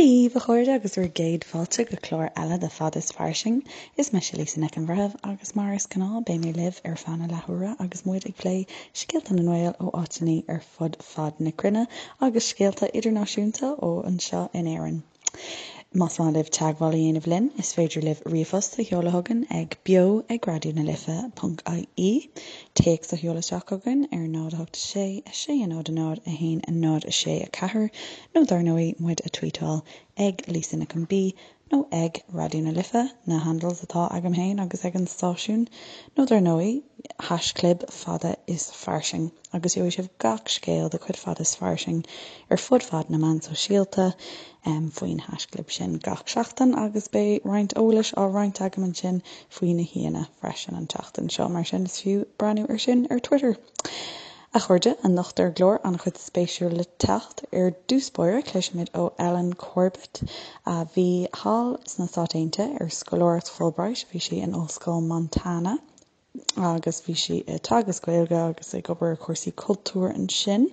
Dia daoibh, a chairde, agus bhur gcéad fáilte go clár eile de Fad is Fairsing. Is mise Lisa Nic an Bhreithimh agus mar is gnáth beidh mé libh ar feadh na leathuaire agus muid ag plé scéalta na nGael ó áiteanna ar fud fad na cruinne agus scéalta idirnáisiúnta ó anseo in Éirinn. Más maith libh teagmháil a dhéanamh linn, is féidir libh ríomhphost a sheoladh chugainn ag beo ag raidió na life ponc ie, téacs a sheoladh isteach chugainn ar 0 8 6 6 0 0 1 0 6 4 nó dar ndóigh muid a tweetáil ag Lisa Nic an B nó ag Raidió na Life, na handles atá agam féin agus ag an stáisiún, nó dar ndóigh haischlib fada is fairsing agus gheobhaidh sibh gach scéal de chuid Fada is Fairsing ar fud fad na meán sóisialta faoin haischlib sin gach seachtain agus beidh roinnt eolais á roinnt agam ansin faoi na haíonna freisin an tseachtain seo, mar sin is fiú breathnú ar sin ar Twitter. A chairde, anocht ar an gclár, an-chuid spéisiúil le teacht. Ar dtús báire, cloisfimid ó Ellen Corbett, a bhí thall sna Stáit Aontaithe ar scoláireacht Fulbright. Bhí sí in Ollscoil Montana agus bhí sí ag teagasc Gaeilge agus ag obair ar chúrsaí cultúir ansin.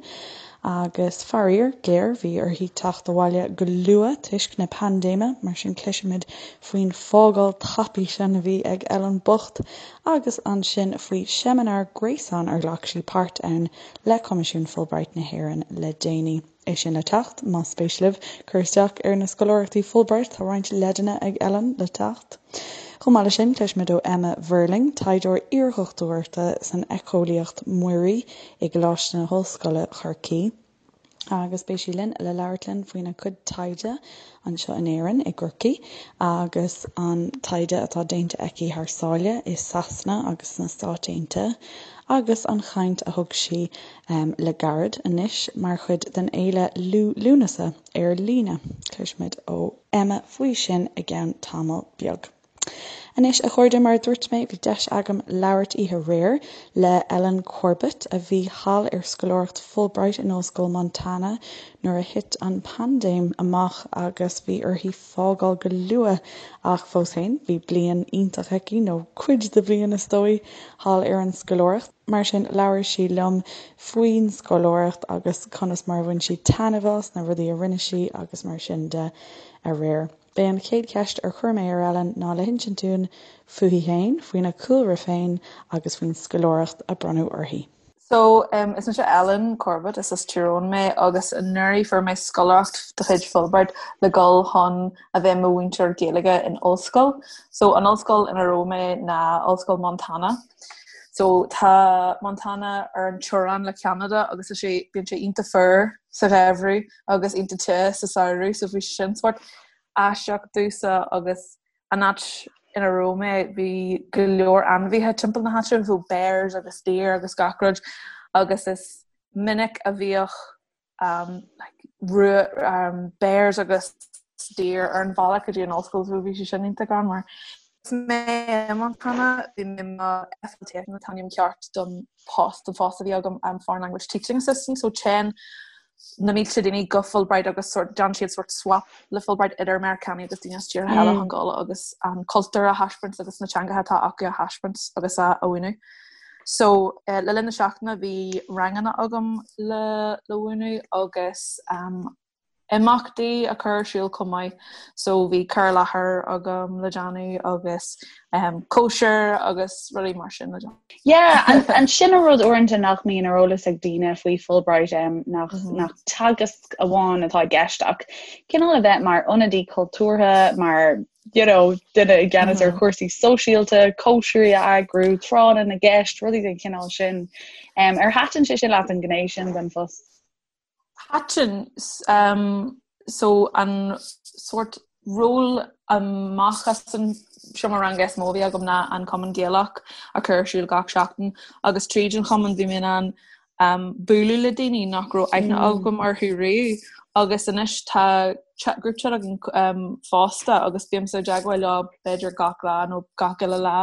Agus faraor géar, bhí uirthi teacht abhaile go luath toisc na paindéime, mar sin cloisfimid faoin fágáil tapaidh sin a bhí ag Ellen bocht agus ansin faoi seimineár gréasáin ar ghlac sí páirt ann le Coimisiún Fulbright na hÉireann le déanaí. É sin le teacht, más spéis libh cur isteach ar na scoláireachtaí Fulbright, tá roinnt leideanna ag Ellen le teacht. Chomh maith leis sin, cloisfimid ó Emma Verling, taighdeoir iardhochtúireachta san éiceolaíocht mhuirí i gColáiste na hOllscoile, Corcaigh, agus beidh sí linn le labhairt linn faoina cuid taighde anseo in Éirinn, i gCorcaigh, agus an taighde atá déanta aici thar sáile i Sasana agus sna Stáit Aontaithe, agus an chaint a thug sí le gairid anois mar chuid den fhéile Liú Lúnasa ar líne. Cloisfimid ó Emma faoi sin i gceann tamall beag. Anois, a chairde, mar a dúirt mé, bhí deis agam labhairt oíche aréir le Ellen Corbett, a bhí thall ar scoláireacht Fulbright in Ollscoil Montana nuair a thit an paindéim amach agus bhí uirthi fágáil go luath ach fós féin, bhí bliain iontach aici, nó cuid de bhliain is dóigh, thall ar an scoláireacht. Mar sin, labhair sí liom faoin scoláireacht agus conas mar a bhain sí taitneamh as, na rudaí a rinne sí agus mar sin de aréir. B'é an chéad cheist ar chuir mé ar Ellen ná le hinsint dúinn fúithi féin, faoina cúlra féin agus faoin scoláireacht a bronnadh uirthi. So, is mise Ellen Corbett, is as Tír Eoghain mé agus anuraidh fuair mé scoláireacht de chuid Fulbright le dhul chun a bheith i mo mhúinteoir Gaeilge in ollscoil. So, an ollscoil ina raibh mé ná Ollscoil Montana. So, tá Montana ar an teorainn le Ceanada agus is é, bíonn sé iontach fuar sa gheimhreadh agus iontach te sa samhradh so bhí sin sórt aisteach domhsa agus an áit ina raibh mé bhí go leor ainmhithe timpeall na háite, so bears agus deer agus gach rud agus is minic a bhíodh um, like, um, bears agus deer ar an bhealach go dtí an ollscoil so bhí sé sin iontach greannmhar. Agus mé i Montana bhí mé i mo FLTA an t-ainm ceart don post don phost a bhí agam um, Foreign Language Teaching Assistant so téann na mílte daoine go Fulbright agus sort déanann siad sort swap le Fulbright idir Meiriceánaigh agus daoine as tíortha eile chun dul agus an cultúr a thaispeáint agus na teangacha atá acu a thaispeáint agus a mhúineadh. So eh, le linn na seachtaine bhí ranganna agam le le mhúineadh agus um, imeachtaí a chur ar siúl chomh maith so bhí cur i láthair agam le déanamh agus um, cóisir agus rudaí mar sin le déanamh. Yeah, an, an sin an rud uaireanta nach mbíonn ar eolas ag daoine faoi Fulbright um, nach, mm -hmm. nach teagasc amháin atá i gceist ach cineál a bheith mar ionadaí cultúrtha, mar you know, duine i gceannas mm -hmm. ar mhm. chúrsaí sóisialta, cóisirí a eagrú, tráthanna na gceist, rudaí den chineál sin. Um, ar thaitin sé sin leat an ghné sin den phost? Thaitin. So an sórt ról amach as an seomra ranga is mó a bhí agam ná an Cumann Gaelach a chur ar siúl gach seachtain agus tríd an chumann bhí mé in ann um, bualadh le daoine nach raibh aithne mm. agam orthu riamh agus anois tá chat, group chat againn um, fosta agus bímse i dteagmháil leo b'fhéidir gach lá nó gach uile lá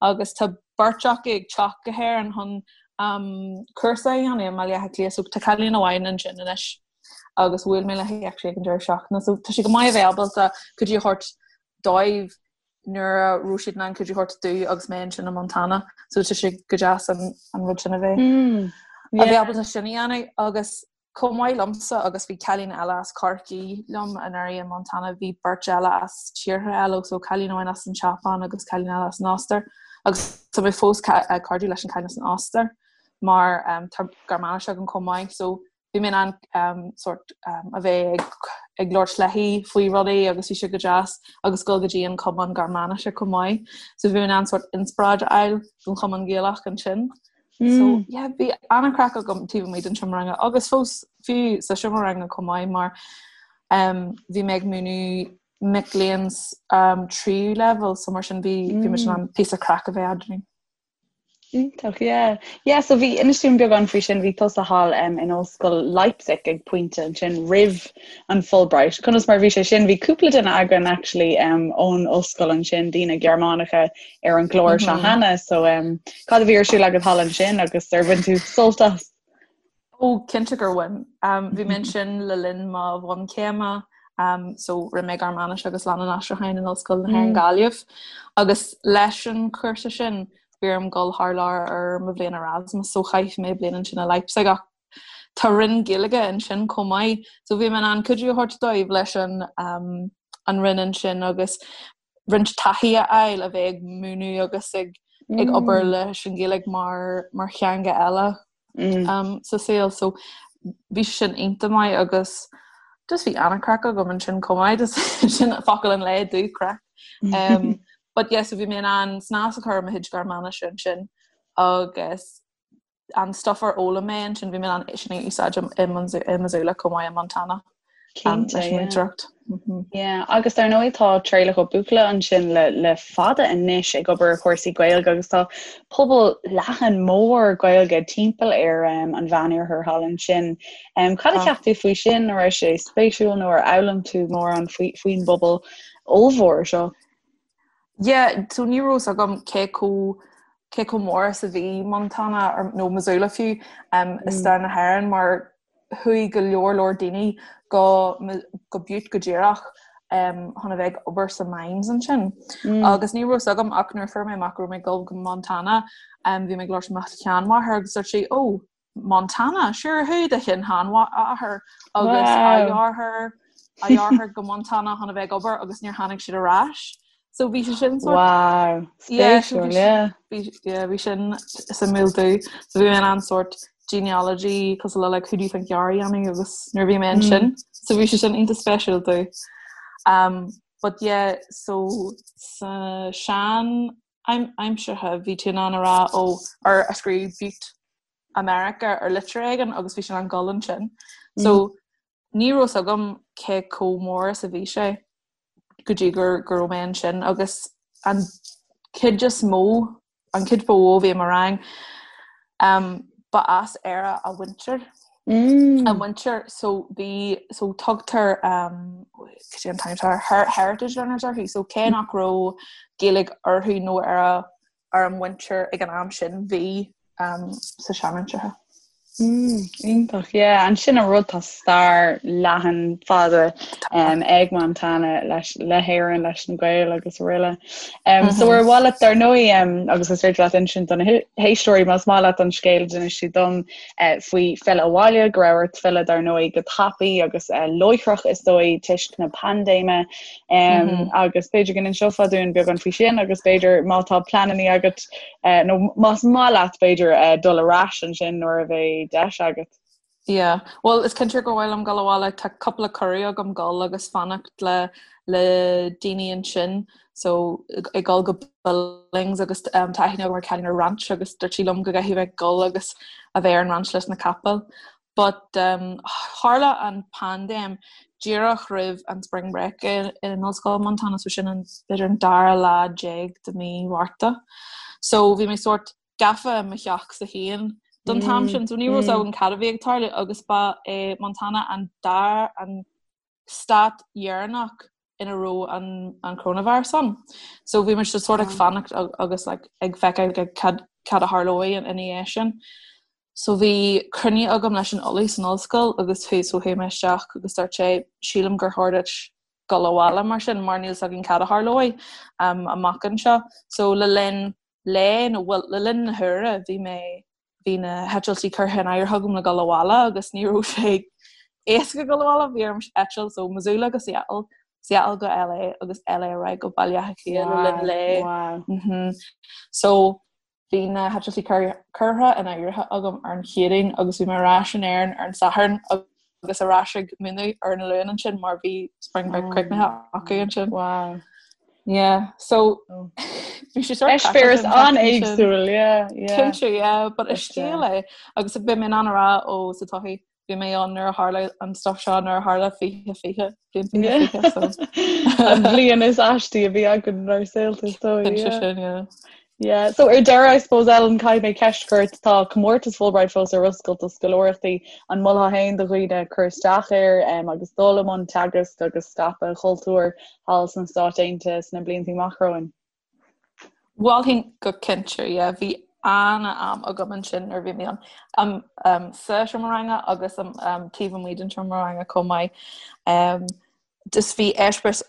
agus tá beirt acu ag teacht go hÉirinn chun cúrsa a dhéanamh i mBaile Átha Cliath so tá cailín amháin ansin anois agus bhuail mé léi actually ag an deireadh seachtaine so tá sé go maith a bheith ábalta cuidiú a thabhairt dóibh nuair a raibh siad in ann cuidiú a thabhairt domh agus mé ansin i Montana so tá sé go deas an, an rud sin a bheith mm, yeah. a bheith ábalta sin a dhéanamh agus. Chomh maith liomsa agus bhí cailín eile as Corcaigh liom anuraidh i Montana, bhí beirt eile as tíortha eile, so cailín amháin as an tSeapáin agus cailín eile as an Ostair. Agus tá mé fós cairdiúil leis an cailín as an Ostair mar tá Gearmáinis agam chomh maith, so bhí mé in ann sort a bheith ag labhairt léi faoi rudaí agus bhí sé go deas agus dul go dtí an Cumann Gearmáinise chomh maith. So bhí mé in ann sort inspioráid a fháil don Chumann Gaelach ansin. So yeah, bhí an-chraic agam taobh amuigh den seomra ranga agus fós fiú sa seomra ranga chomh maith mar um, bhí mé ag múineadh mic léinn um, tríú leibhéal so mar sin bhí bhí muid in ann píosa craic a bheith eadrainn. Iontach, yeah. Yeah, so bhí inis dúinn beagán faoi sin, bhí tusa thall um, in ollscoil Leipzig ag pointe ansin roimh an Fulbright. Conas mar bhí sé sin? Bhí cúpla duine againn actually um, ón ollscoil ansin, daoine Gearmánacha ar an gclár seo cheana so um, cad a bhí ar siúl agat thall ansin agus ar bhain tú sult as? Ó cinnte gur bhain. Um, bhí mé ansin le linn mo bhunchéime um, so rinne mé Gearmáinis agus Leannán Aistriúcháin in Ollscoil na hÉireann mm. Gaillimh agus leis an chúrsa sin bhí orm dul thar lear ar mo bhliain Erasmus so chaith mé bliain ansin i Leipzig ach tá roinn Gaeilge ansin chomh maith so bhí mé in ann cuidiú a thabhairt dóibh leis an um, an roinn ansin agus roinnt taithí a fháil a bheith ag múineadh agus ag ag mm. obair leis an Ghaeilge mar mar theanga eile mm. um, sa saol so bhí sin iontach maith agus just bhí an-chraic agam ansin chomh maith sin focal an lae dú craic. Um, but yes, so bhí mé in ann snas a chur ar mo chuid Gearmáinise ansin agus an stuff ar fhoghlaim mé ansin bhí mé in ann é sin a úsáid i Missoula chomh maith i Montana. Cinnte, leis an múinteoireacht. Yeah, agus dar ndóigh tá Traolach Ó Buachalla ansin le, le fada anois ag obair ar chúrsaí Gaeilge agus tá pobal leathan mór Gaeilge timpeall ar um, an Mheánoirthear thall ansin. Um, cad a cheap tú faoi sin, an raibh sé spéisiúil nó ar fhoghlaim tú mórán faoi, faoin bpobal ollmhór seo? Yeah, so ní raibh fhios agam cé chomh cé chomh mór is a bhí Montana or, nó Missoula fiú um, i stair na hÉireann mar chuaigh go leor leor daoine go go Butte go díreach um, chun a bheith ag obair sa mines ansin. Mm. Agus ní raibh fhios agam ach nuair a fuair mé amach go raibh mé ag dul go Montana um, bhí mé ag labhairt le mo sheanmháthair agus dúirt sí, oh, Montana, sure chuaigh do shin-sheanathair agus a dheartháir a dheartháir go Montana chun a bheith ag obair agus níor tháinig siad ar ais. So bhí sé sin sort Wow, spéisiúil, yeah. Yeah, bhí sin suimiúil domh. So bhí mé in ann sort genealogy cosúil le like who do you think you are a dhéanamh agus nuair bhí mé ansin. So bhí sé sin iontach spéisiúil domh. Um, but yeah, so sa sean aimseartha bhí tú in ann a rá ó ar a scríobh Butte America ar litir éigin agus bhí sé in ann dul ansin. So ní raibh fhios agam cé chomh mór is a bhí sé go dtí gur go raibh mé ansin agus an chuid is mó an chuid ba mhó a bhí i mo rang um, ba as Éire a mhuintir. Mm. A mhuintir so bhí so tugtar um, cad é an t-ainm atá air, heritage learners orthu so cé nach raibh Gaeilge orthu nó ar a ar a muintir ag an am sin bhí um, sa seanaimseartha. Mm, iontach, yeah. Ansin an rud tá stair leathan fada um, ag Montana leis le hÉirinn leis na Gaeil agus araile. Um, mm -hmm. So ar mhaith leat dar ndóigh um, agus is féidir leat insint do na héisteoirí más maith leat an scéal a d'inis tú dom uh, faoi filleadh abhaile go raibh ort filleadh dar ndóigh go tapaidh agus uh, láithreach is dóigh toisc na paindéime um, mm -hmm. agus b'fhéidir go n-inseofá dúinn beagán faoi sin agus b'fhéidir má tá pleananna agat uh, nó más maith leat b'fhéidir uh, dul ar ais ansin nuair a bheidh deis agat. Yeah, well is cinnte gur mhaith liom dul abhaile tá cúpla cuireadh agam dul agus fanacht le le daoine ansin so ag dul go Billings agus um, tá aithne agam ar cailín ar ranch agus dúirt sí liom go gcaithfidh mé dul agus a bheith ar an ranch leis na capaill. But um, tharla an paindéim díreach roimh an spring break in, in Ollscoil Montana so sin an b'fhéidir an dara lá déag de mí Mhárta. So bhí mé sort gafa i mo theachsa féin don t-am sin, so ní raibh fhios agam cad a bhí ag tarlú agus ba é Montana an dara an stát dheireanach ina raibh an an coronavirus ann. So bhí muid sort ag fanacht agus like, ag feiceáil cad cad a tharlóidh ina dhiaidh sin. So bhí cruinniú agam leis an ollamh san ollscoil agus chuaigh so chuaigh mé isteach agus dúirt sé sílim gur chóir duit dul abhaile mar sin mar níl fhios againn cad a tharlóidh um, amach anseo. So le linn lae nó well le linn na huaire bhí mé. Bhí na heitiltí curtha in áirithe agam le dul abhaile agus ní raibh sé éasca dul abhaile, bhí orm eitilt ó Missoula go Seattle, Seattle go LA agus LA ar aghaidh go Baile Átha Cliath le linn lae. Wow. Mhm. So bhí na heitiltí curtha in áirithe agam ar an Chéadaoin agus bhí mé ar ais in Éirinn ar an Satharn agus ar ais ag múineadh ar an Luan ansin mar bhí spring break críochnaithe acu ansin. Wow. Yeah, so oh. bhí sé sort Eispéireas an-éagsúil, yeah, yeah. Cinnte, yeah, but is scéal é agus beidh mé in ann a rá ó sa todhchaí bhí mé ann nuair a tharla an stuff seo nuair a tharla 2020 bliain 2020 so. An bhliain is aistí a bhí againn inár saolta is dóigh. Cinnte sin, yeah. Yeah, so ar deireadh I suppose Ellen caithfidh mé ceist a chur ort, tá comórtas Fulbright fós ar oscailt do scoláireachtaí, an molfá féin do dhaoine cur isteach air um, agus dul i mbun teagasc agus scaipeadh an chultúir thall sna Stáit Aontaithe sna blianta amach romhainn? Mholfainn go cinnte, yeah, bhí an-am agam ansin nuair a bhí mé ann. Um, um, sa seomra ranga agus um, um, taobh amuigh den seomra ranga chomh maith. Um, just bhí eispéireas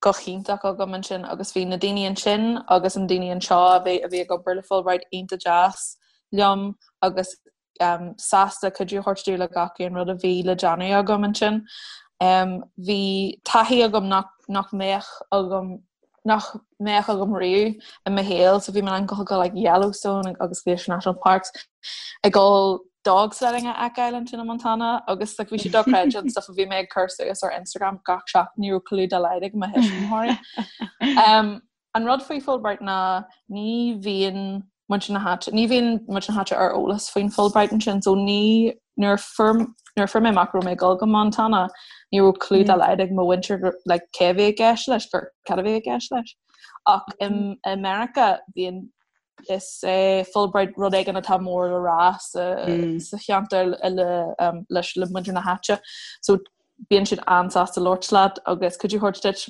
go hiontach agam ansin agus bhí na daoine ansin agus an daoine anseo a bhí a bhí ag obair le Fulbright iontach deas liom agus um, sásta cuidiú a thabhairt domh le gach aon rud a bhí le déanamh agam ansin. Um, bhí taithí agam nach, nach mbeadh agam nach mbeadh agam riamh i mo shaol, so bhí mé in ann dul go like Yellowstone agus Glacier National Parks ag dul dog sledding a fheiceáil ansin i Montana agus like bhí sé dochreidte an stuff a bhí mé ag cur suas ar Instagram gach seachtain ní raibh clue dá laghad ag mo thuismitheoirí. Um, an rud faoi Fulbright ná ní bhíonn muintir na háite, ní bhíonn muintir na háite ar eolas faoin Fulbright ansin, so ní nuair a fuair nuair a fuair mé amach go raibh mé ag dul go Montana, ní raibh clue dá laghad ag mo mhuintir like cé a bhí i gceist leis, gur cad a bhí i gceist leis. Ach i i Meiriceá bíonn is é Fulbright rud éigin atá mór le rá sa sa cheantar le um, leis le muintir na háite. So bíonn siad an-sásta labhairt leat agus cuidiú a thabhairt duit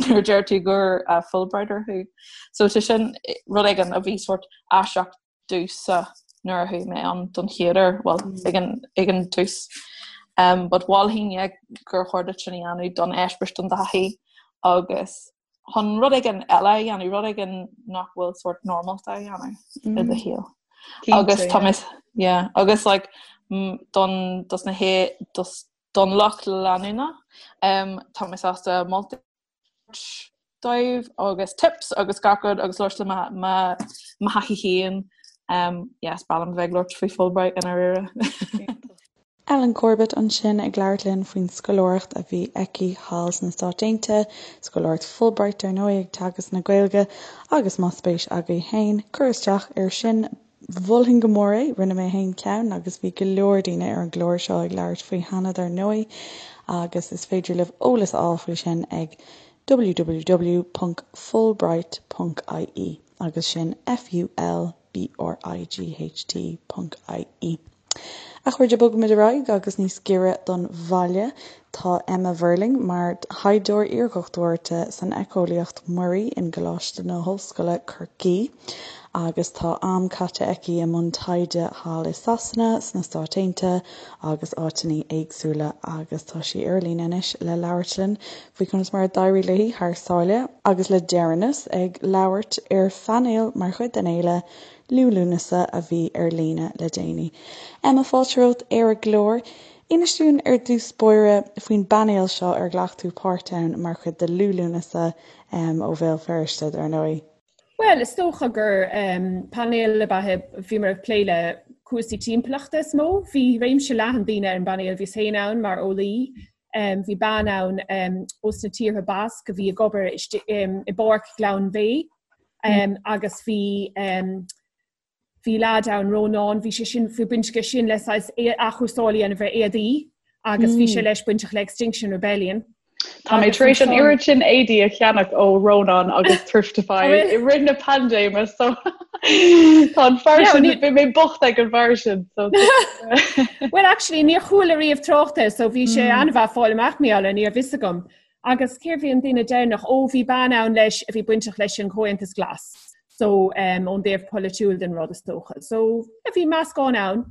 nuair a deir tú gur uh, Fulbrighter thú. So tá sin rud éigin a bhí sort aisteach domhsa nuair a chuaigh mé ann don chéad uair, well ag an, ag an tús. Um, but mholfainn yeah, gur chóir duit sin a dhéanamh don eispéireas don taithí agus chun rud éigin eile a dhéanamh, rud éigin nach bhfuil sort normálta a dhéanamh i do shaol. Agus tá mé yeah, agus like don dos na hé dos don lucht leanúna um, tá mé sásta moltaí dóibh agus tips agus gach rud agus labhairt le mo thaithí féin. Um, yes, is breá liom bheith ag labhairt faoi Fulbright i ndáiríre. Ellen Corbett ansin ag labhairt linn faoin scoláireacht a bhí aici thall sna Stáit Aontaithe, scoláireacht Fulbright dar ndóigh ag teagasc na Gaeilge agus más spéis agaibh féin cur isteach air sin mholfainn go mór é, rinne mé féin ceann agus bhí go leor daoine ar an gclár seo ag labhairt faoi cheana dar ndóigh agus is féidir libh eolas a fháil faoi sin ag www.fulbright.ie agus sin F-U-L B-R-I-G-H-T.ie. A chairde, bogfaimid ar aghaidh agus níos giorra don bhaile tá Emma Verling mar thaighdeoir iardhochtúireachta san éiceolaíocht mhuirí in gColáiste na hOllscoile Corcaigh agus tá am caite aici i mbun taighde thall i Sasana, sna Stáit Aontaithe agus áiteanna éagsúla agus tá sí ar líne anois le labhairt linn faoi conas mar a d'éirigh léi thar sáile agus le deireanas ag labhairt ar phainéal mar chuid den fhéile Liú Lúnasa a bhí ar líne le déanaí. Emma, fáilte romhat ar an gclár. Inis dúinn ar dtús báire faoin bpainéal seo ar ghlac tú páirt ann mar chuid de Liú Lúnasa ó Bhéal Feirste, dar ndóigh. Bhuel, is dócha gur painéal ab ea é, bhíomar ag plé le cúrsaí timpeallachta is mó. Bhí réimse leathan daoine ar an bpainéal, bhíos féin ann mar eolaí, bhí bean ann ós na tíortha Basque a bhí ag obair i bPáirc Ghleann Bhéith agus bhí bhí leaid ann, Rónán, bhí sé sin, bhí baint aige sin le saghas athchúrsáil a dhéanamh ar éadaí agus bhí sé leis bainteach le Extinction Rebellion. Tá mé tar éis an oiread sin éadaí a cheannach ó Rónán agus Thriftify i rith na paindéime so tá an fear sin bhí mé bocht ag an bhfear sin. Well actually níor chuala riamh trácht air so bhí sé hmm. an-mhaith fáil amach mar gheall air ní raibh fhios agam. Agus cérbh í an duine deireanach ó bhí bean ann leis a bhí bainteach leis an Chomhaontas Glas. So um, ón dtaobh polaitiúil den rud is dócha. So bhí meascán ann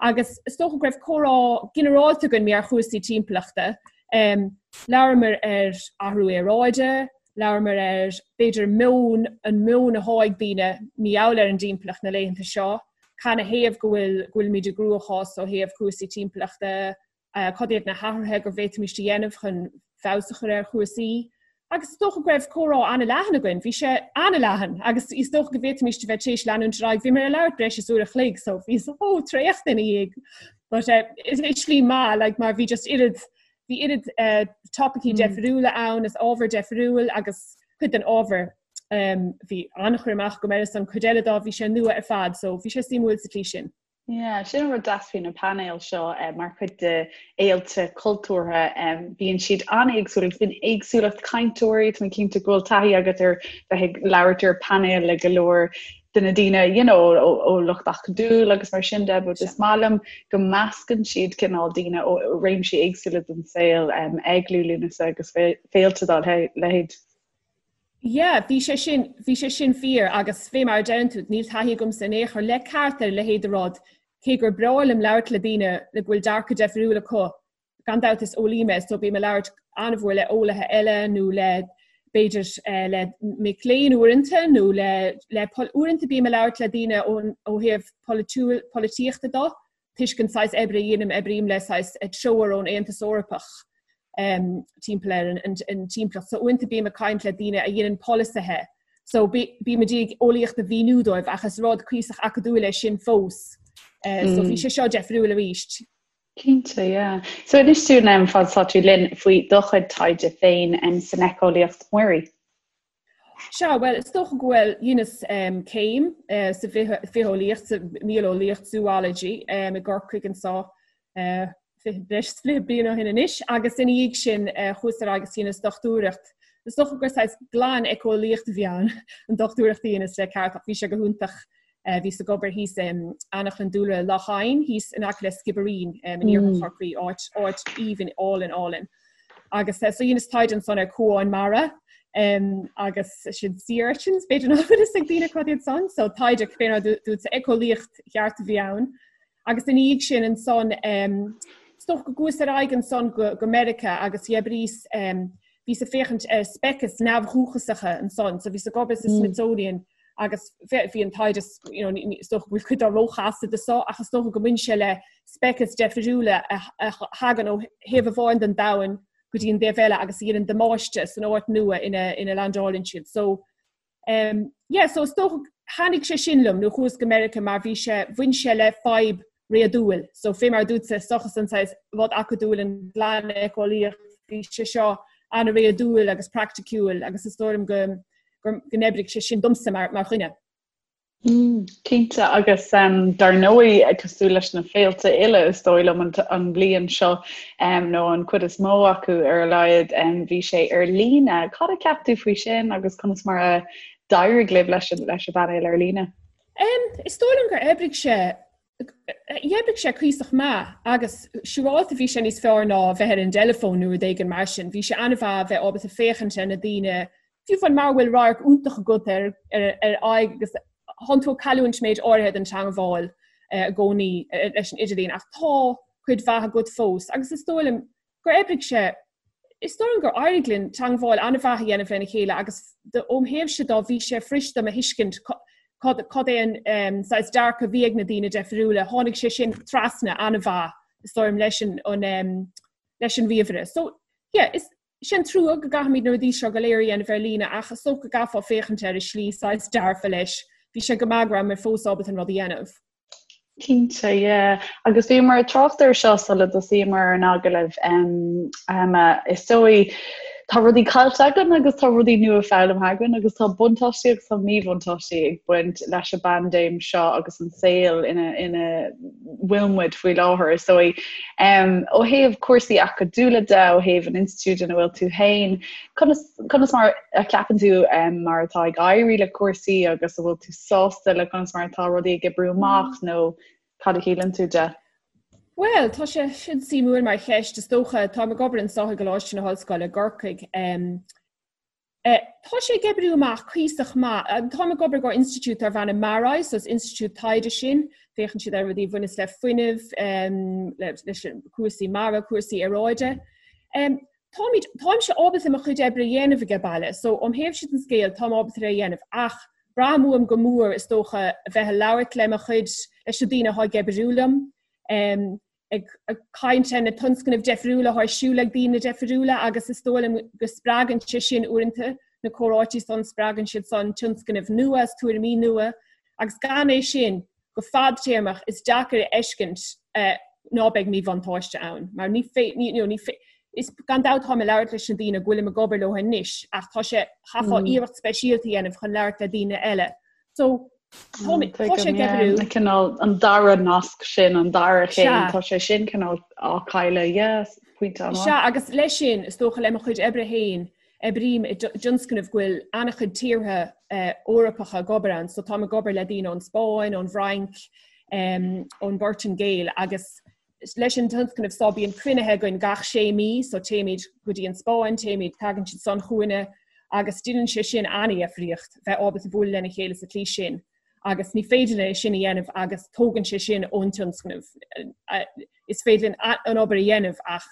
agus is dócha go raibh comhrá ginearálta againn ar chúrsaí timpeallachta. Um, labhramar ar athrú aeráide, labhramar ar b'fhéidir meon an meon atá ag daoine mar gheall ar an dtimpeallacht na laethanta seo. Canathaobh go bhfuil go bhfuilimid i gcruachás ó thaobh cúrsaí timpeallachta, cad iad na hathruithe go bhféadfaimis a dhéanamh chun feabhas a chur ar chúrsaí. Agus is dócha go raibh comhrá an-leathan againn, bhí sé an-leathan agus is dócha go bhféadfaimis a bheith tar éis leanúint ar aghaidh. Bhíomar ag labhairt breis is uair a chloig so bhíos chomh traochta ina dhiaidh. But uh, is i slí maith like, mar bhí just oiread bhí oiread uh, topaicí mm. deifriúla ann is ábhar deifriúil agus cuid den ábhar um, bhí an-chur amach agam air is an cuid eile dá bhí sé nua ar fad, so bhí sé suimiúil sa tslí sin. Yeah, sin an rud deas faoi na painéil seo eh, mar chuid de fhéilte cultúrtha. Eh, bíonn siad an-éagsúil agus bíonn éagsúlacht cainteoirí, tá mé cinnte go bhfuil taithí agat ar bheith ag labhairt ar painéil le go leor de na daoine you know, ó, ó lucht acadúil agus mar sin de, but is maith liom go meascann siad cineál daoine ó réimsí éagsúla den saol um, ag Liú Lúnasa agus féilte dá leithéid. Yeah, bhí sé sin, bhí sé sin fíor agus fé mar a deireann tú, níl taithí agamsa in aon chor le ceart ar a leithéid de rud, cé gur breá liom labhairt le daoine le go bhfuil dearcadh deifriúil acu. Gan dabht is eolaí mé so bím ag labhairt an-mhór le eolaithe eile nó le b'fhéidir eh, le mic léinn uaireanta nó le, le uaireanta bím ag labhairt le daoine ón, ó thaobh polaitiúil, polaitíochta de toisc an saghas oibre a dhéanaim, oibrím le saghas treoir ón Aontas Eorpach timpeall ar an timpeallacht. So uaireanta bím ag caint le daoine a dhéanann polasaithe. So bím ag iarraidh eolaíocht a mhíniú dóibh ach is rud cuíosach acadúil é sin fós. So bhí sé seo deifriúil arís. Cinnte, yeah. So inis dúinn fad is atá tú linn faoi do chuid taighde féin san éiceolaíocht mhuirí. Sea, bhuel, is dócha go bhfuil, dheineas céim sa bhitheolaíocht, sa mhíoleolaíocht, zoology, i gCorcaigh anso breis is 20 bliain ó shin anois agus ina dhiaidh sin chuas ar aghaidh agus dheineas dochtúireacht. Is dócha gur saghas glan-éiceolaíocht a bhí ann, an dochtúireacht a dheineas le ceart ach bhí sé go hiontach. Bhíos ag obair thíos in Anaclann Dúlra Loch Eidhin, thíos in aice le Skibbereen in iarthar Chorcaí, áit áit aoibhinn álainn álainn. Agus so dheineas taighde ansan ar cuáin mara agus sin sea urchins, b'fhéidir nach bhfuil fhios ag daoine cad iad san, so taighde fé mar a dúirt éiceolaíocht cheart a bhí ann. Agus ina dhiaidh sin ansan is dócha go gcuas ar aghaidh ansan go go Meiriceá agus dh'oibríos bhíos ag féachaint ar speicis neamhdhúchasacha ansan, so bhíos ag obair sa Smithsonian agus bhí an taighde you know, is dócha go bhfuil cuid dá róchasta do so ach is dócha go mbaineann sé le speicis deifriúla a thagann ó thaobh amháin den domhan go dtí an taobh eile agus a dhéanann damáiste san áit nua ina ina landálann siad. So um, yeah, so is dócha thaitnigh sé sin liom nó chuas go Meiriceá mar bhí sé bhain sé le fadhb réadúil. So fé mar dúirt seachas an saghas rud acadúil an ghlan-éiceolaíocht bhí sé seo an-réadúil agus praiticiúil agus is dóigh liom go go n-oibrigh sé sin domsa mar mar dhuine. Mm, cinnte agus um, dar ndóigh cosúil leis na féilte uile is dóigh liom an, an bhliain seo um, nó an chuid is mó acu ar a laghad um, bhí sé ar líne. Cad a cheap tú faoi sin agus conas mar a d'éirigh libh leis an, leis an bpainéal ar líne? Um, is dóigh liom gur oibrigh sé D'oibrigh sé cuíosach maith agus siúráilte bhí sé níos fearr ná bheith ar an dteileafón nó rud éigin mar sin. Bhí sé an-mhaith a bheith ábalta féachaint ar na daoine, fiú amháin mara bhfuil radharc iontach agat ar ar aghaidh agus tánn tú ag cailliúint méid áirithe den teangmháil i gcónaí leis an idirlíon ach tá cuid mhaith agat fós agus is dóigh liom gur oibrigh sé, is dóigh liom gur éirigh linn teangmháil an-mhaith a dhéanamh lena chéile agus óm thaobhse dá bhí sé fuirist dom a thuiscint cad cad é an saghas dearcadh a bhí ag na daoine deifriúla, tháinig sé sin trasna an-mhaith is dóigh liom leis an an leis an ríomhaire. So yeah, is sé an trua go gcaithfimid na rudaí seo go léir a dhéanamh ar líne ach is dócha go gcaithfeá féachaint air i slí saghas dearfa leis. Bhí sé go maith go raibh mé fós ábalta an rud a dhéanamh. Cinnte, yeah. Agus bhíomar ag trácht air seo sula dtosaíomar ar an agallamh, Emma, is dóigh, tá rudaí caillte againn agus tá rudaí nua foghlamtha againn agus tá buntáistí agus tá míbhuntáistí ag baint leis an bpaindéim seo agus an saol ina ina bhfuil muid faoi láthair, is dóigh. Ó thaobh cúrsaí acadúla de, ó thaobh an institiúid ina bhfuil tú féin, Conas, conas mar a cheapann tú mar atá ag éirí le cúrsaí agus an bhfuil tú sásta le conas mar atá rudaí ag oibriú amach nó cad a shíleann tú de? Bhuel, tá sé sin suimiúil mar cheist, is dócha. Táim ag obair anseo i gColáiste na hOllscoile i gCorcaigh. Tá sé ag oibriú amach cuíosach maith. Táim ag obair go institiúid darb ainm MaREI, so is institiúid taighde sin. Féachann siad ar rudaí a bhaineas le fuinneamh, leis cúrsaí mara, cúrsaí aeráide. Táimid, táimse ábalta mo chuid oibre a dhéanamh age baile, so óm thaobhse den scéal táim ábalta é a dhéanamh ach braithim uaim go mór is dócha a bheith ag labhairt le mo chuid. leis na daoine atá ag oibriú liom, ag caint ar na tionscnaimh difriúla atá ar siúl ag daoine difriúla agus is dóigh liom go spreagann sé sin uaireanta na comhráití san, spreagann siad san tionscnaimh nua is tuairimí nua agus gan é sin go fadtéarmach is deacair a fheiscint ná beidh míbhuntáiste ann mar ní ní you know, ní is gan dabht táim ag labhairt leis na daoine go bhfuilim ag obair leo anois ach tá sé chaithfeá iarracht speisialta a dhéanamh chun labhairt le daoine eile. So tá tá sé ag oibriú. Cineál an dara nasc sin, an dara chéim, tá sé sin cineál á chailleadh, yes, pointe an-mhaith. Sea, agus leis sin, is dócha le mo chuid oibre féin, oibrím i dtionscnamh go bhfuil an-chuid tíortha Eorpacha ag obair ann, so táim ag obair le daoine ón Spáinn, ón bhFrainc, ón bPortaingéil agus leis an tionscnamh so bíonn cruinnithe againn gach sé mí, so téimid go dtí an Spáinn, téimid, tagann siad san chugainne agus déanann sé sin an-difríocht bheith ábalta bualadh lena chéile sa tslí sin agus ní féidir linn é sin a dhéanamh agus tógann sé sin ón tionscnamh. Is féidir linn an obair a dhéanamh ach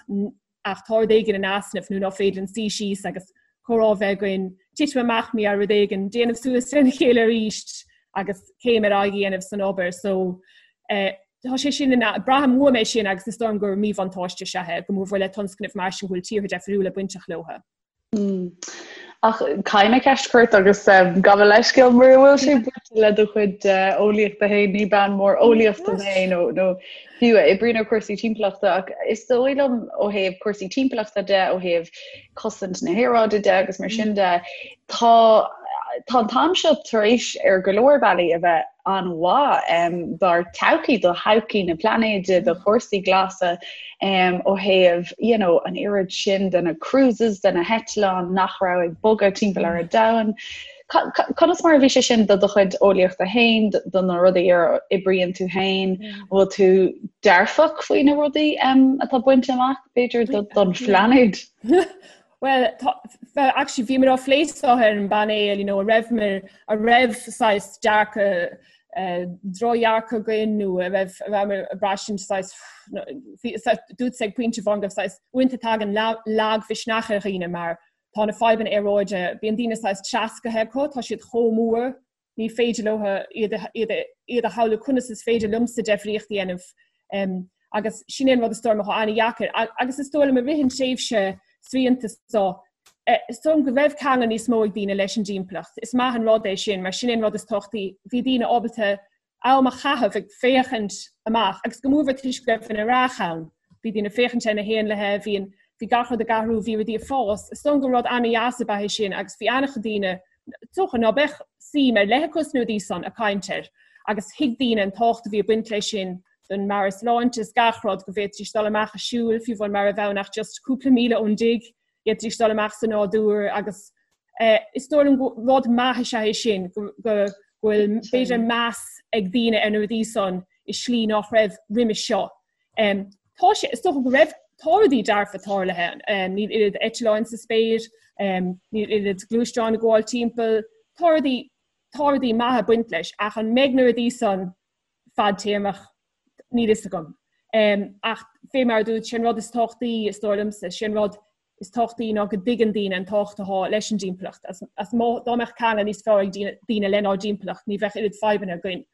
ach tá rud éigin in easnamh nó ná féidir linn suí síos agus comhrá a bheith againn, titim amach mí ar rud éigin, déanamh suas lena chéile arís agus céim ar aghaidh a dhéanamh san obair. So eh, tá sé sin ina, braithim uaim é sin agus is dóigh liom gur míbhuntáiste is ea é, go mórmhór le tionscnaimh mar sin go bhfuil tíortha difriúla bainteach leo. Mm. Ach caithfidh mé ceist a chur ort agus um, gabh mo leithscéal mura bhfuil sé bainte le do chuid uh, eolaíochta féin ní bean mór eolaíochta mé nó nó fiú a oibríonn ar cúrsaí timpeallachta ach is dóigh liom ó thaobh cúrsaí timpeallachta de ó thaobh cosaint na haeráide de agus mar sin de tá tá an t-am seo tar éis ar go leor bealaí a bheith an-mhaith dár todhchaí, do thodhchaí na pláinéide, do chúrsaí glasa ó thaobh you know, an oiread sin de na cruises, de na heitleáin nach raibh ag bogadh timpeall ar an domhan. Conas mar a bhí sé sin do do chuid eolaíochta féin, do na rudaí ar oibríonn tú féin, an bhfuil tú dearfach faoi na rudaí atá bainte amach, b'fhéidir, don phláinéad? Well, tá, well, actually, bhíomar á phlé seo ar an bpainéal, you know, a raibh mar, a raibh saghas dearcadh, eh, drochdhearcadh againn nó a raibh, a raibh ag braistint saghas, bhí, dúirt ag pointe amháin go raibh saghas, uaireanta tagann lagmhisneach ar dhaoine mar tá na fadhbanna aeráide, bíonn daoine saghas treascartha acu, tá siad chomh mór, ní féidir leo iad iad a shamhlú conas is féidir liomsa deifríocht a dhéanamh agus sin é an rud is dóigh liom atá an-dheacair agus is dóigh liom i rith an tréimhse srianta seo is dóigh liom go raibh ceangal níos mó ag daoine leis an dtimpeallacht. Is maith an rud é sin mar sin é an rud is tábhachtaí. Bhí daoine ábalta am a chaitheamh ag féachaint amach agus go mórmhór toisc go raibh an earrach ann. Bhí daoine ag féachaint ar na héanlaithe, bhí an, bhí gach rud ag athrú, bhí rudaí ag fás. Is dóigh liom gur rud an-dheas ab ea é sin agus bhí an-chuid daoine, is dócha, ná beadh suim ar leith acu sna rudaí san ag caint air agus thuig daoine an tábhacht a bhí ag baint leis sin don meabhairshláinte is gach rud, go bhféadfaidís dul amach ag siúl, fiú amháin mara raibh ann ach just cúpla míle ón dtigh, d'fhéadfaidís dul amach sa nádúr agus is dóigh liom gur rud maith is ea é sin, go bhfuil b'fhéidir meas ag daoine ar na rudaí san i slí nach raibh roimis seo. Tá sé, is dócha go raibh, tá rudaí dearfa tarlaithe, níl oiread eitleáin sa spéir, níl oiread gluaisteáin ag gabháil timpeall, tá rudaí, tá rudaí maithe ag baint leis ach an mbeidh na rudaí san fadtéarmach, níl fhios agam. Ach fé mar a dúirt, sé an rud is tábhachtaí, is dóigh liomsa, sé an rud is tábhachtaí ná go dtuigeann daoine an tábhacht atá leis an dtimpeallacht. As má, dá mbeadh ceangal níos fearr ag daoine lenár dtimpeallacht, ní bheadh oiread fadhbanna againn.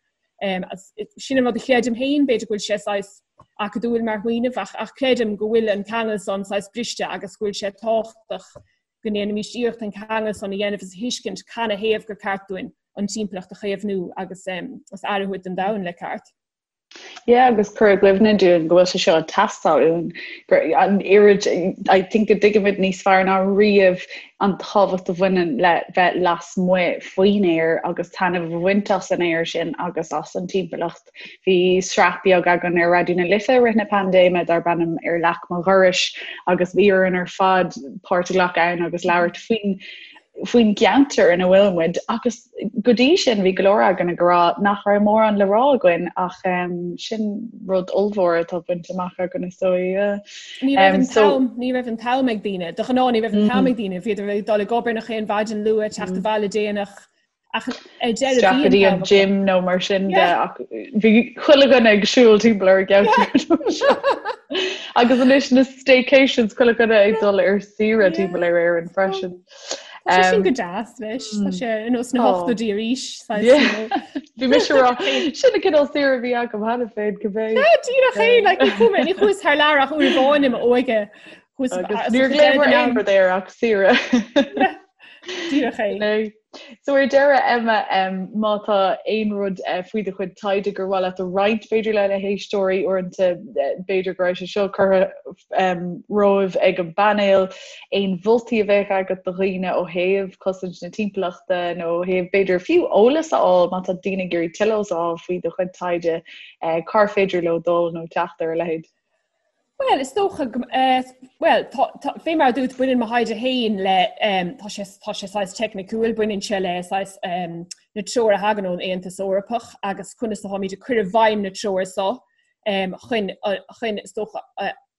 Sin an rud a chreidim féin, b'fhéidir go bhfuil sé saghas acadúil mar smaoineamh, ach, ach creidim go bhfuil an ceangal san saghas briste agus go bhfuil sé tábhachtach go ndéanfaimis iarracht an ceangal san a dhéanamh is a thuiscint canathaobh gur ceart dúinn an timpeallacht a chaomhnú agus agus aire a thabhairt don domhan le ceart. Yeah, agus cur i gcuimhne dúinn go bhfuil sé seo ag teastáil uainn, gur an oiread, I think go dtuigimid níos fearr ná riamh an tábhacht a bhaineann le bheith lasmuigh faoin aer agus taitneamh a bhaint as an aer sin agus as an timpeallacht. Bhí sraith beag againn ar Raidió na Life i rith na paindéime darb ainm Ar Leac Mo Dhorais agus bhí orainn ar fad páirt a ghlacadh ann agus labhairt faoin faoin gceantar ina bhfuil muid agus go dtí sin bhí go leor againn ag rá nach raibh mórán le rá againn ach um, sin rud ollmhór atá bainte amach againn is dóigh. Ní raibh an t-am ní raibh an t-am ag daoine, de ghnáth ní raibh an t-am ag daoine, bhíodar ag dul ag obair nach aon mhaidin luath teacht abhaile déanach Ach ar deireadh bhí an t-am gym nó mar sin de ach bhí chuile dhuine ag siúl timpeall ar an gceantar. Agus anois na staycations chuile dhuine ag dul ar saoire timpeall ar Éirinn freisin. Tá sé sin go deas leis Tá sé ar nós na hochtóidí arís. Bhí mise ag rá sin an cineál saoire a bhí agam cheana féin cibé. Díreach é like, ní chuaigh mé ní chuas thar lear ach uair amháin i m'óige. Níor ghlaomar aon rud air ach saoire. Díreach é. So ar deireadh, Emma, má tá aon rud faoi do chuid taighde gur mhaith leat a roinnt, b'fhéidir le na héisteoirí, uaireanta b'fhéidir go raibh sé seo curtha romhaibh ag an bpainéal, aon mholtaí a bheadh agat do dhaoine ó thaobh cosaint na timpeallachta nó ó thaobh b'fhéidir fiú eolas a fháil má tá daoine ag iarraidh tuilleadh eolas a fháil faoi do chuid taighde, cár féidir leo dul nó teacht ar a leithéid? Bhuel, is dócha go, bhuel, tá, tá, fé mar a dúirt, baineann mo thaighde féin le, tá sé, tá sé saghas teicniciúil, baineann sé le saghas na treoir a thagann ón Aontas Eorpach agus conas atáimid ag cur i bhfeidhm na treoir so chun, chun, is dócha,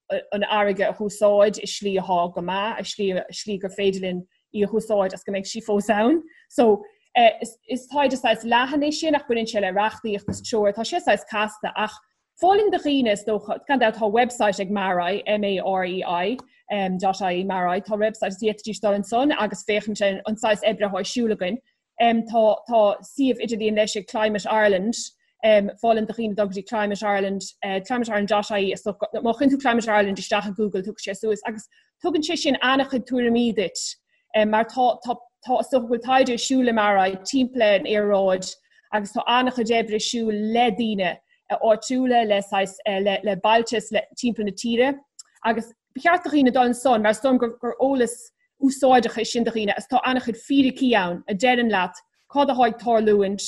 an fharraige a húsáid i slí atá go maith, i slí, i slí gur féidir linn í a húsáid agus go mbeidh sí fós ann. So, is, is taighde saghas leathan é sin ach baineann sé le reachtaíocht is treoir, tá sé saghas casta ach Mholfainn do dhaoine, is dócha, gan dabht tá website ag MaREI, M-A-R-E-I, dot ie, MaREI, tá website is d'fhéadfaidís dul ansan agus féachaint ar an saghas oibre atá ar siúl againn. Tá tá suíomh idirlíon leis ag Climate Ireland, mholfainn do dhaoine dul go dtí Climate Ireland, climate-ireland dot ie, is dócha, má chuireann tú Climate Ireland isteach i Google tiocfaidh sé suas agus tugann sé sin an-chuid tuairimí duit mar tá tá tá is dócha go bhfuil taighde ar siúl i MaREI timpeall ar an aeráid agus tá an-chuid oibre ar siúl le daoine áitiúla, le saghas le le bailte is le timpeall na tíre agus ba cheart do dhaoine dul ansan mar is dóigh liom gur gur eolas úsáideach é sin do dhaoine agus tá an-chuid fíricí ann a deireann leat cad atá ag tarlúint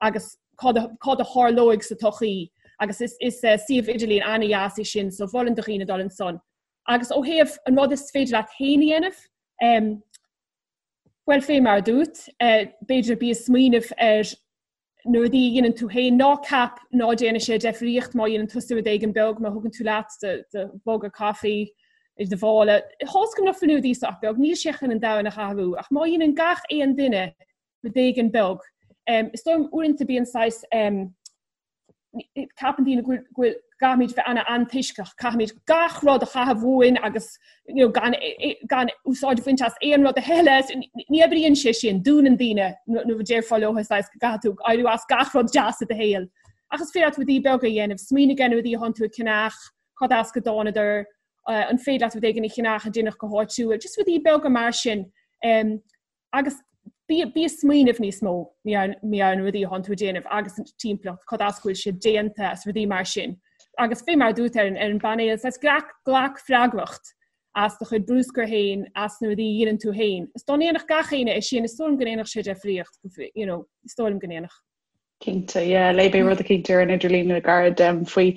agus cad a cad a tharlóidh sa todhchaí agus is is suíomh idirlín an-dheas é sin so mholfainn do dhaoine dul ansan. Agus ó thaobh an rud is féidir leat féin a dhéanamh, bhuel fé mar a dúirt, b'fhéidir bí ag smaoineamh ar na rudaí a dhéanann tú féin, ná ceap ná déanfaidh sé deifríocht má dhéanann tusa rud éigin beag, má thugann tú leat do mhuga caife i do mhála. Tá's agam nach bhfuil na rudaí seo ach beag, níl sé chun an domhan a athrú, ach má dhéanann gach aon duine rud éigin beag, is dóigh liom uaireanta bíonn saghas ceapann daoine go bhfuil caithfimid bheith an-antoisceach, caithfimid gach rud a chaitheamh uainn agus you know, gan, gan úsáid a bhaint as aon rud eile. Ní oibríonn sé sin, dúnann daoine nuair a déarfá leo saghas go gcaithfidh tú éirí as gach rud deas i do shaol. Ach is féidir leat rudaí beaga a dhéanamh, smaoinigh ar na rudaí atánn tú ag ceannach, cad as go dtánadar, an féidir leat rud éigin a cheannach a déanadh go háitiúil, just rudaí beaga mar sin. Um, Agus bí ag smaoineamh níos mó ar na rudaí atánn tú ag déanamh agus an timpeallacht, cad as go bhfuil siad déanta is rudaí mar sin. Agus fé mar a dúirt ar an bpainéal, saghas glac, glac freagracht as do chuid bruscair féin, as na rudaí a dhéanann tú féin. Is dá ndéanfadh gach éinne é sin, is dóigh liom go ndéanfadh sé deifríocht, you know, is dóigh liom go ndéanfadh. Cinnte, yeah. Léigh mé rud eicínt ar an idirlíon le gairid faoi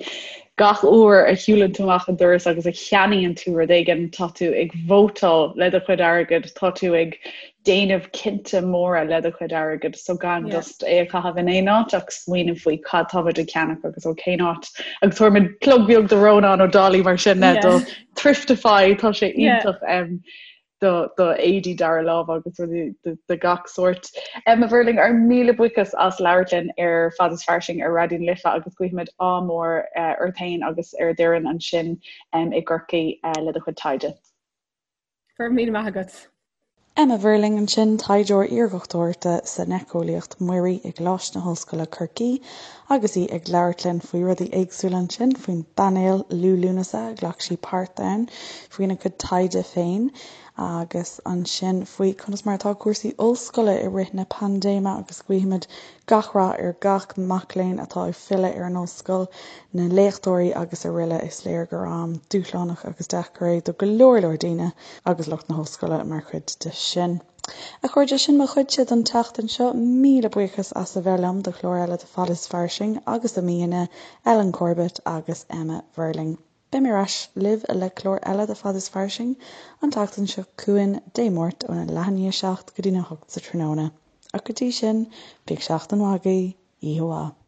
gach uair a shiúlann tú amach an doras agus a cheannaíonn tú rud éigin, tá tú ag vótáil le do chuid airgid, tá tú ag déanamh cinnte móra le do chuid airgid, so gan yeah. just é a chaitheamh in aon áit ach smaoineamh faoi cad táimid ag ceannach agus ó cén áit. Agus tabharfaidh muid plug beag do Rónán Ó Dálaigh mar sin yeah. do Thriftify, tá sé iontach. Yeah. Um, do éadaí dara lámh agus rudaí de gach sórt. Emma Verling, ár míle buíochas as labhairt linn ar Fad is Fairsing ar Raidió na Life agus guímid ádh mór ort féin agus ar d'fhoireann ansin i gCorcaigh le do chuid taighde. Go raibh míle maith agat. Emma Verling ansin, taighdeoir iardhochtúireachta san éiceolaíocht mhuirí i gColáiste na hOllscoile Corcaigh agus í ag labhairt linn faoi rudaí éagsúla ansin, faoin bpainéal Liú Lúnasa a ghlac sí páirt ann, faoina cuid taighde féin agus ansin faoi conas mar atá cúrsaí ollscoile i rith na paindéime agus guímid gach rath ar gach mac léinn atá ag filleadh ar an ollscoil, na léachtóirí agus araile Is léir gur am dúshlánach agus deacair é do go leor leor daoine agus lucht na hollscoile mar chuid de sin. A chairde, sin mo chuidse don tseachtain seo. Míle buíochas as a bheith liom do chlár eile de Fad is Fairsing agus do m'aíonna, Ellen Corbett agus Emma Verling. Beidh mé ar ais libh le clár eile de Fad is Fairsing an tseachtain seo chugainn, Dé Máirt óna leath i ndiaidh a 7 go dtína 8 sa tráthnóna. Ach go dtí sin, bíodh seachtain mhaith agaibh, oíche mhaith.